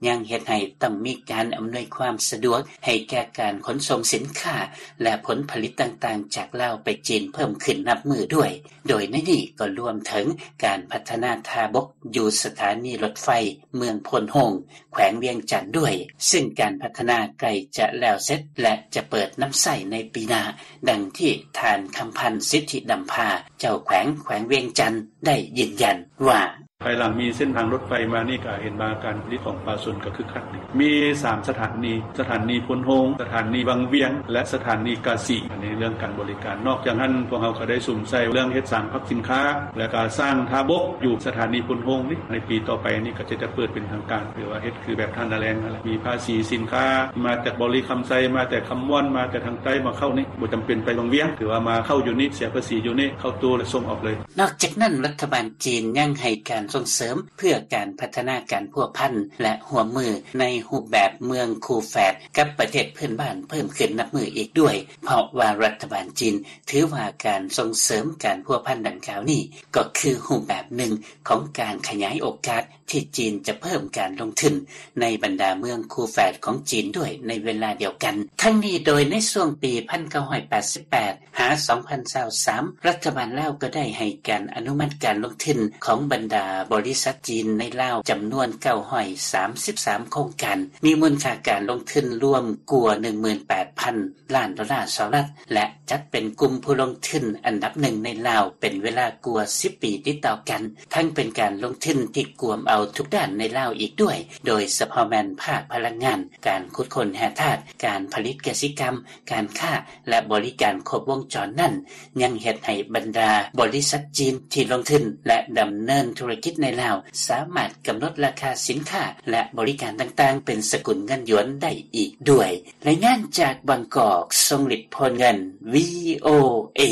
ຍັງເຮັດໃຫ້ຕ້ອງມີການອຳນວຍຄວາມສະດວກໃຫ້ແກ່ການຂົນສົ່ງສິນຄ້າ ແລະ ຜົນຜະລິດຕ່າງໆ ຈາກລາວໄປຈີນເພີ່ມຂຶ້ນນັບມື້ດ້ວຍ. ໂດຍໃນນີ້ກໍລວມເຖິງການພັດທະນາທ່າບົກຢູ່ສະຖານີລົດໄຟເມືອງໂພນໂຮງ ແຂວງວຽງຈັນດ້ວຍ, ຊຶ່ງການພັດທະນາໃກ້ຈະແລ້ວເສັດ ແລະ ຈະເປີດນຳໃຊ້ໃນປີໜ້າ, ດັ່ງທີ່ທ່ານ ຄຳພັນ ສິດທິດຳພາ ເຈົ້າແຂວງແຂວງວຽງຈັນ ໄດ້ຢືນຢັນວ່າ: ພາຍຫຼັງມີເສັ້ນທາງລົດໄຟມານີ້ ກໍເຫັນວ່າການຜະລິດຂອງປະຊາຊົນກໍຄຶກຄັກດີ. ມີສາມສະຖານີ, ສະຖານີໂພນໂຮງ, ສະຖານີວັງວຽງ ແລະ ສະຖານີກາສີ. ອັນນີ້ເລື່ອງການບໍລິການ. ນອກຈາກນັ້ນ ພວກເຮົາກໍໄດ້ສຸມໃສ່ເລື່ອງເຮັດສານພັກສິນຄ້າ ແລະ ກະສ້າງທ່າບົກຢູ່ສະຖານີໂພນໂຮງນີ້. ໃນປີຕໍ່ໄປນີ້ກໍຈະ ຈະເປີດເປັນທາງການ ຫຼືວ່າເຮັດຄືແບບທ່ານາແລງນັ້ນແຫຼະ. ມີພາສີສິນຄ້າ ມາແຕ່ບໍລິຄຳໄຊ, ມາແຕ່ຄຳມ່ວນ, ມາແຕ່ທາງໃຕ້ມາເຂົ້ານີ້ ບໍ່ຈຳເປັນໄປວັງວຽງ, ຖືວ່າມາເຂົ້າຢູ່ນີ້, ເສຍພາສີຢູ່ນີ້, ເຂົ້າຕູ້ແລ້ວສົ່ງອອກເລີຍ. ນອກຈາກນັ້ນ, ລັດຖະບານຈີນຍັງໃຫ້ການສົ່ງເສີມເພື່ອການພັດທະນາການພົວພັນ ແລະ ຮ່ວມມືໃນຮູບແບບເມືອງຄູ່ແຝດກັບປະເທດເພື່ອນບ້ານເພີ່ມຂຶ້ນນັບມື້ອີກດ້ວຍ, ເພາະວ່າລັດຖະບານຈີນຖືວ່າການສົ່ງເສີມການພົວພັນດັ່ງກ່າວນີ້ ກໍຄືຮູບແບບໜຶ່ງຂອງການຂະຫຍາຍໂອກາດ ທີ່ຈີນຈະເພີ່ມການລົງທຶນໃນບັນດາເມືອງຄູ່ແຝດຂອງຈີນດ້ວຍໃນເວລາດຽວກັນ. ທັງນີ້ໂດຍໃນຊ່ວງປີພັນເກົ້າຮ້ອຍແປດສິບແປດຫາສອງພັນຊາວສາມ ລັດຖະບານລາວກໍໄດ້ໃຫ້ການອະນຸມັດການລົງທຶນຂອງບັນດາບໍລິສັດຈີນໃນລາວຈຳນວນເກົ້າຮ້ອຍສາມສິບສາມໂຄງການ, ມີມູນຄ່າການລົງທຶນລວມກວ່າໜຶ່ງໝື່ນແປດພັນລ້ານໂດລາສະຫະລັດ ແລະ ຈັດເປັນກຸ່ມຜູ້ລົງທຶນອັນດັບໜຶ່ງໃນລາວເປັນເວລາກວ່າສິບປີຕິດຕໍ່ກັນ, ທັງເປັນການລົງທຶນທີ່ກວມເອົາທຸກດ້ານໃນລາວອີກດ້ວຍ, ໂດຍສະເພາະແມ່ນພາກພະລັງງານ, ການຂຸດຄົ້ນແຮ່ທາດ, ການຜະລິດກະສິກຳ, ການຄ້າ ແລະ ບໍລິການຄົບວົງຈອນນັ້ນ ຍັງເຮັດໃຫ້ບັນດາບໍລິສັດຈີນທີ່ລົງທຶນ ແລະ ດຳເນີນທຸລະກິດໃນລາວ ສາມາດກຳນົດລາຄາສິນຄ້າ ແລະ ບໍລິການຕ່າງໆ ເປັນສະກຸນເງິນຢວນໄດ້ອີກດ້ວຍ. ລາຍງານຈາກບາງກອກ, ຊົງລິດ ໂພນເງິນ, ວີໂອເອ.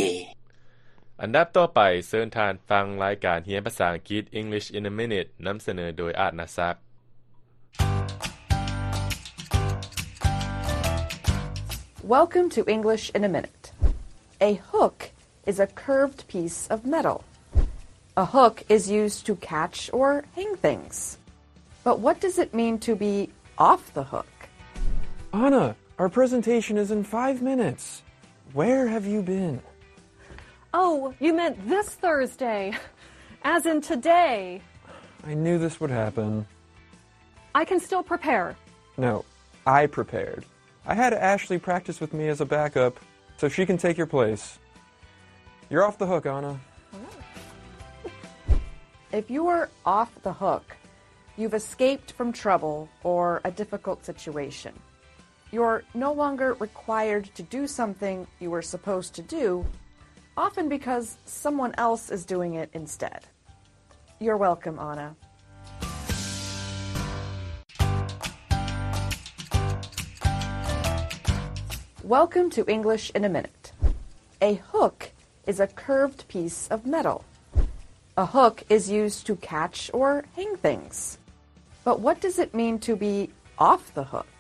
ອັນດັບຕໍ່ໄປ, ເຊີນທ່ານຟັງລາຍການຮຽນພາສາອັງກິດ English in a Minute ນຳສະເໜີໂດຍ ອາດນາສັກ. Welcome to English in a Minute. A hook is a curved piece of metal. A hook is used to catch or hang things. But what does it mean to be off the hook? Anna, our presentation is in five minutes. Where have you been? Oh, you meant this Thursday. As in today. I knew this would happen. I can still prepare. No, I prepared. I had Ashley practice with me as a backup, so she can take your place. You're off the hook, Anna. If you were off the hook, you've escaped from trouble or a difficult situation. You're no longer required to do something you were supposed to do, often because someone else is doing it instead. You're welcome, Anna. Welcome to English in a Minute. A hook is a curved piece of metal. A hook is used to catch or hang things. But what does it mean to be off the hook?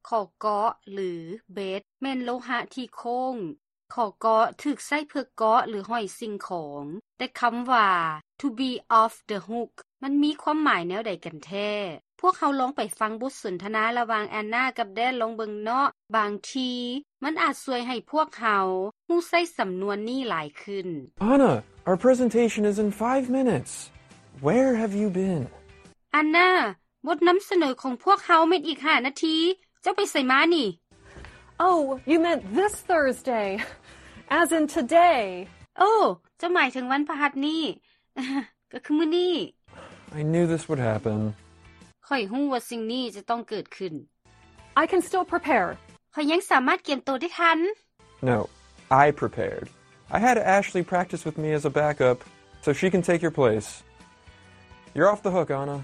ຂໍ້ເກາະ ຫຼື ເບັດ ແມ່ນໂລຫະທີ່ໂຄ້ງ. ຂໍ້ເກາະ ຖືກໃຊ້ເພື່ອເກາະ ຫຼື ຫ້ອຍສິ່ງຂອງ, ແຕ່ຄຳວ່າ to be off the hook ມັນມີຄວາມໝາຍແນວໃດກັນແທ້? ພວກເຮົາລອງໄປຟັງບົດສົນທະນາລະຫວ່າງແອນນາກັບແດນລອງເບິ່ງເນາະ. ບາງທີມັນອາດຊ່ວຍໃຫ້ພວກເຮົາຮູ້ໃຊ້ສຳນວນນີ້ຫຼາຍຂຶ້ນ. Anna, our presentation is in five minutes. Where have you been? ແອນນາ, ບົດນຳສະເໜີຂອງພວກເຮົາແມ່ນອີກຫ້ານາທີ. ເຈົ້າໄປໃສມານີ້? Oh, you meant this Thursday. As in today. ໂອ້, ເຈົ້າໝາຍເຖິງວັນພະຫັດນີ້. ກໍຄືມື້ນີ້. I knew this would happen. ຂ້ອຍຮູ້ວ່າສິ່ງນີ້ຈະຕ້ອງເກີດຂຶ້ນ. I can still prepare. ຂ້ອຍຍັງສາມາດກຽມໂຕໄດ້ທັນ. No, I prepared. I had Ashley practice with me as a backup, so she can take your place. You're off the hook, Anna.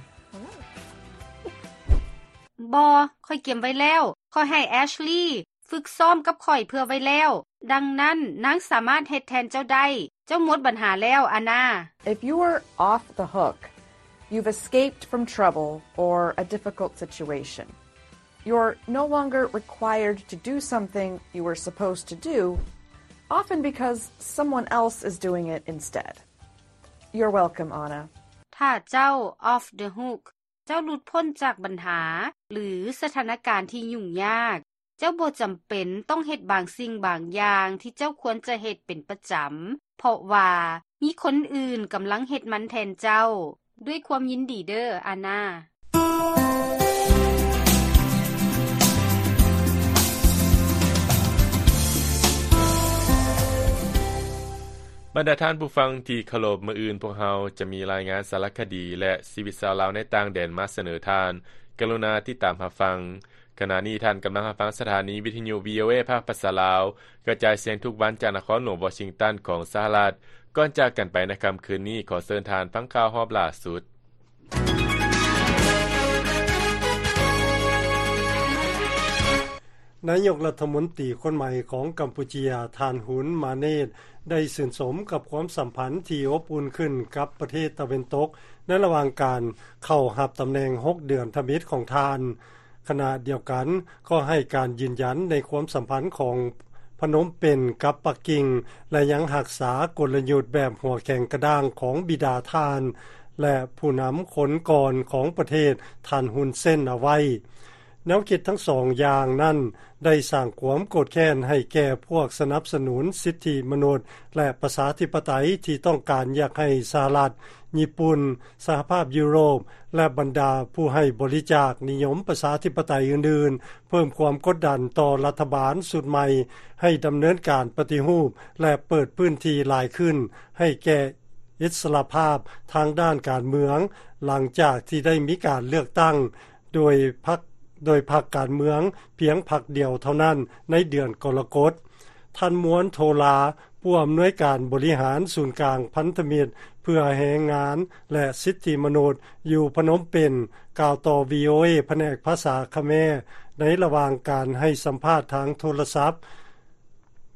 ບໍ່, ຂ້ອຍກຽມໄວ້ແລ້ວ. ຂ້ອຍໃຫ້ແອັດລີຝຶກຊ້ອມກັບຂ້ອຍເພື່ອໄວ້ແລ້ວ. ດັ່ງນັ້ນ, ນາງສາມາດເຮັດແທນເຈົ້າໄດ້. ເຈົ້າໝົດບັນຫາແລ້ວ, ແອນນາ. If you were off the hook, you've escaped from trouble or a difficult situation. You're no longer required to do something you were supposed to do, often because someone else is doing it instead. You're welcome, Anna. ຖ້າເຈົ້າ off the hook ເຈົ້າຫຼຸດພົ້ນຈາກບັນຫາ ຫຼື ສະຖານະການທີ່ຫຍຸ້ງຍາກ. ເຈົ້າບໍ່ຈຳເປັນຕ້ອງເຮັດບາງສິ່ງບາງຢ່າງທີ່ເຈົ້າຄວນຈະເຮັດເປັນປະຈຳ, ເພາະວ່າມີຄົນອື່ນກຳລັງເຮັດມັນແທນເຈົ້າ. ດ້ວຍຄວາມຍິນດີເດີ້, ອານາ. ບັນດາທ່ານຜູ້ຟັງທີ່ເຄົາລົບ, ມື້ອື່ນພວກເຮົາຈະມີລາຍງານສາລະຄະດີ ແລະ ຊີວິດຊາວລາວໃນຕ່າງແດນມາສະເໜີທ່ານ. ກະລຸນາຕິດຕາມຮັບຟັງ. ຂະນະນີ້ທ່ານກຳລັງຮັບຟັງສະຖານີວິທະຍຸ ວີໂອເອ ພາກພາສາລາວ, ກະຈາຍສຽງທຸກວັນຈາກນະຄອນຫຼວງວໍຊິງຕັນຂອງສະຫະລັດ. ກ່ອນຈາກກັນໄປໃນຄ່ຳຄືນນີ້, ຂໍເຊີນທ່ານຟັງຂ່າວຮອບລ່າສຸດ. ນາຍົກລັດຖະມົນຕີຄົນໃໝ່ຂອງກຳປູເຈຍ, ທ່ານ ຮຸນ ມາເນດ ໄດ້ຊື່ນຊົມກັບຄວາມສຳພັນທີ່ອົບອຸ່ນຂຶ້ນກັບປະເທດຕາເວັນຕົກ ໃນລະຫວ່າງການເຂົ້າຮັບຕຳແໜ່ງຫົກເດືອນທຳອິດຂອງທ່ານ. ຂະນະດຽວກັນກໍໃຫ້ການຢືນຢັນໃນຄວາມສຳພັນຂອງພະນົມເປັນກັບປັກກິ່ງ ແລະ ຍັງຮັກສາກົນລະຍຸດແບບຫົວແຂງກະດ້າງຂອງບິດາທ່ານ ແລະ ຜູ້ນຳຄົນກ່ອນຂອງປະເທດ ທ່ານ ຮຸນເຊນ ເອົາໄວ້. ແນວຄິດທັງສອງຢ່າງນັ້ນໄດ້ສ້າງຄວາມໂກດແຄ້ນໃຫ້ແກ່ພວກສະໜັບສະໜູນສິດທິມະນຸດ ແລະ ປະຊາທິປະໄຕທີ່ຕ້ອງການຢາກໃຫ້ສະຫະລັດ, ຍີ່ປຸ່ນ, ສະຫະພາບຢູໂຣບ ແລະ ບັນດາຜູ້ໃຫ້ບໍລິຈາກນິຍົມປະຊາທິປະໄຕອື່ນໆ ເພີ່ມຄວາມກົດດັນຕໍ່ລັດຖະບານຊຸດໃໝ່ໃຫ້ດຳເນີນການປະຕິຮູບ ແລະ ເປີດພື້ນທີ່ຫຼາຍຂຶ້ນໃຫ້ແກ່ອິດສະຫຼະພາບທາງດ້ານການເມືອງ ຫຼັງຈາກທີ່ໄດ້ມີການເລືອກຕັ້ງໂດຍພັກ, ໂດຍພັກການເມືອງພຽງພັກດຽວເທົ່ານັ້ນໃນເດືອນກໍລະກົດ. ທ່ານ ມວນ ໂທລາ, ຜູ້ອຳນວຍການບໍລິຫານສູນກາງພັນທະມິດເພື່ອແຮງງານ ແລະ ສິດທິມະນຸດ ຢູ່ພະນົມເປັນ ກ່າວຕໍ່ ວີໂອເອ ພະແນກພາສາຂະແມ ໃນລະຫວ່າງການໃຫ້ສຳພາດທາງໂທລະສັບ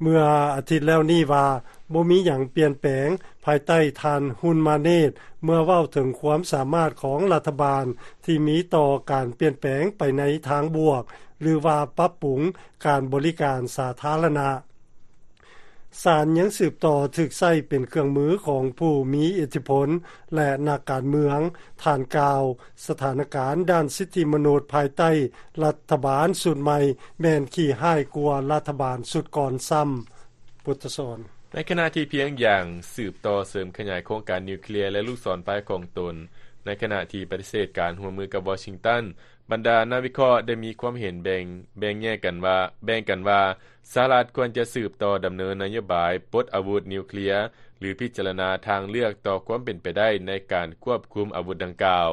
ເມື່ອອາທິດແລ້ວນີ້ວ່າ ບໍ່ມີຫຍັງປ່ຽນແປງພາຍໃຕ້ທ່ານ ຮຸນ ມາເນດ ເມື່ອເວົ້າເຖິງຄວາມສາມາດຂອງລັດຖະບານທີ່ມີຕໍ່ການປ່ຽນແປງໄປໃນທາງບວກ ຫຼືວ່າປັບປຸງການບໍລິການສາທາລະນະ. ສານຍັງສືບຕໍ່ຖືກໃຊ້ເປັນເຄື່ອງມືຂອງຜູ້ມີອິດທິພົນ ແລະ ນັກການເມືອງ. ທ່ານກ່າວ, ສະຖານະການດ້ານສິດທິມະນຸດພາຍໃຕ້ລັດຖະບານຊຸດໃໝ່ແມ່ນຂີ້ຮ້າຍກວ່າລັດຖະບານຊຸດກ່ອນຊ້ຳ. ພຸດທະສອນ. ໃນຂະນະທີ່ພຽງຢາງສືບຕໍ່ເສີມຂະຫຍາຍໂຄງການນິວເຄລຍ ແລະ ລູກສອນໄຟຂອງຕົນ, ໃນຂະນະທີ່ປະຕິເສດການຮ່ວມມືກັບວໍຊິງຕັນ, ບັນດານັກວິເຄາະໄດ້ມີຄວາມເຫັນແບ່ງ, ແບ່ງແຍກກັນວ່າ, ແບ່ງກັນວ່າ ສະຫະລັດຄວນຈະສືບຕໍ່ດຳເນີນນະໂຍບາຍປົດອາວຸດນິວເຄລຍ ຫຼື ພິຈາລະນາທາງເລືອກຕໍ່ຄວາມເປັນໄປໄດ້ໃນການຄວບຄຸມອາວຸດດັ່ງກ່າວ.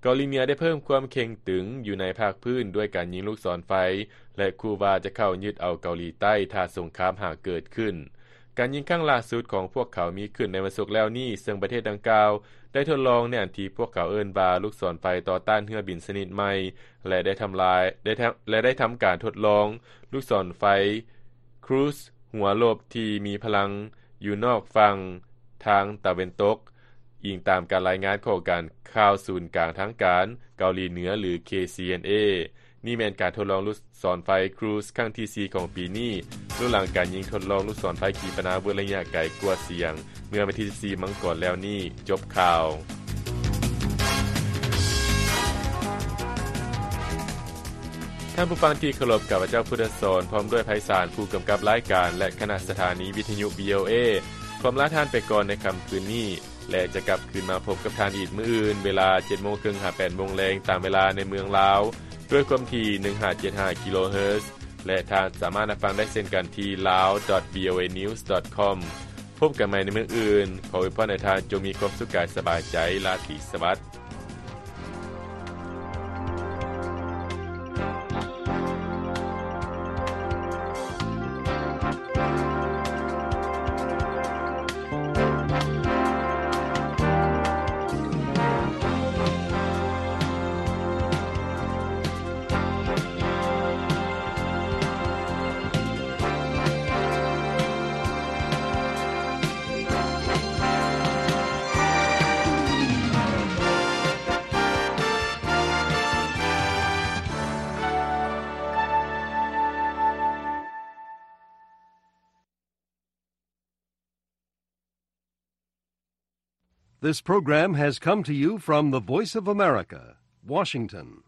ເກົາຫຼີເໜືອໄດ້ເພີ່ມຄວາມເຄັ່ງຕຶງຢູ່ໃນພາກພື້ນດ້ວຍການຍິງລູກສອນໄຟ ແລະ ຂູ່ວ່າຈະເຂົ້າຍຶດເອົາເກົາຫຼີໃຕ້ຖ້າສົງຄາມຫາກເກີດຂຶ້ນ. ການຍິງຄັ້ງລ່າສຸດຂອງພວກເຂົາມີຂຶ້ນໃນວັນສຸກແລ້ວນີ້, ເຊິ່ງປະເທດດັ່ງກ່າວໄດ້ທົດລອງໃນອັນທີ່ພວກເຂົາເອີ້ນວ່າລູກສອນໄຟຕໍ່ຕ້ານເຮືອບິນຊະນິດໃໝ່ ແລະ ໄດ້ທຳລາຍ, ໄດ້ທຳ, ແລະ ໄດ້ທຳການທົດລອງລູກສອນໄຟຄຣູຊຫົວລົບທີ່ມີພະລັງຢູ່ນອກຝັ່ງທາງຕາເວັນຕົກ, ອີງຕາມການລາຍງານຂອງການຂ່າວສູນກາງທາງການເກົາຫຼີເໜືອ ຫຼື ເຄຊີເອັນເອ. ນີ້ແມ່ນການທົດລອງລູກສອນໄຟຄຣູຊຄັ້ງທີສີ່ຂອງປີນີ້, ລຸກຫຼັງການຍິງທົດລອງລູກສອນໄຟຂີປະນາວຸດໄລຍະໄກກວ່າສຽງ ເມື່ອວັນທີສິບສີ່ມັງກອນແລ້ວນີ້. ຈົບຂ່າວ. ທ່ານຜູ້ຟັງທີ່ເຄົາລົບ, ຂ້າພະເຈົ້າ ພຸດທະສອນ ພ້ອມດ້ວຍ ໄພສານ ຜູ້ກຳກັບລາຍການ ແລະ ຄະນະສະຖານີວິທະຍຸ ວີໂອເອ ຂໍລາທ່ານໄປກ່ອນໃນຄ່ຳຄືນນີ້. ແລະ ຈະກັບຄືນມາພົບກັບທ່ານອີກມື້ອື່ນ ເວລາເຈັດໂມງເຄິ່ງຫາແປດໂມງແລງ ຕາມເວລາໃນເມືອງລາວ ດ້ວຍຄວາມຖີ່ໜຶ່ງຫ້າເຈັດຫ້າກິໂລເຮີດ ແລະ ທ່ານສາມາດຮັບຟັງໄດ້ເຊັ່ນກັນທີ່ lao dot voa news dot com. ພົບກັນໃໝ່ໃນມື້ອື່ນ. ຂໍອວຍພອນໃຫ້ທ່ານຈົ່ງມີຄວາມສຸກກາຍສະບາຍໃຈ. ລາຕີສະຫວັດ. This program has come to you from the Voice of America, Washington.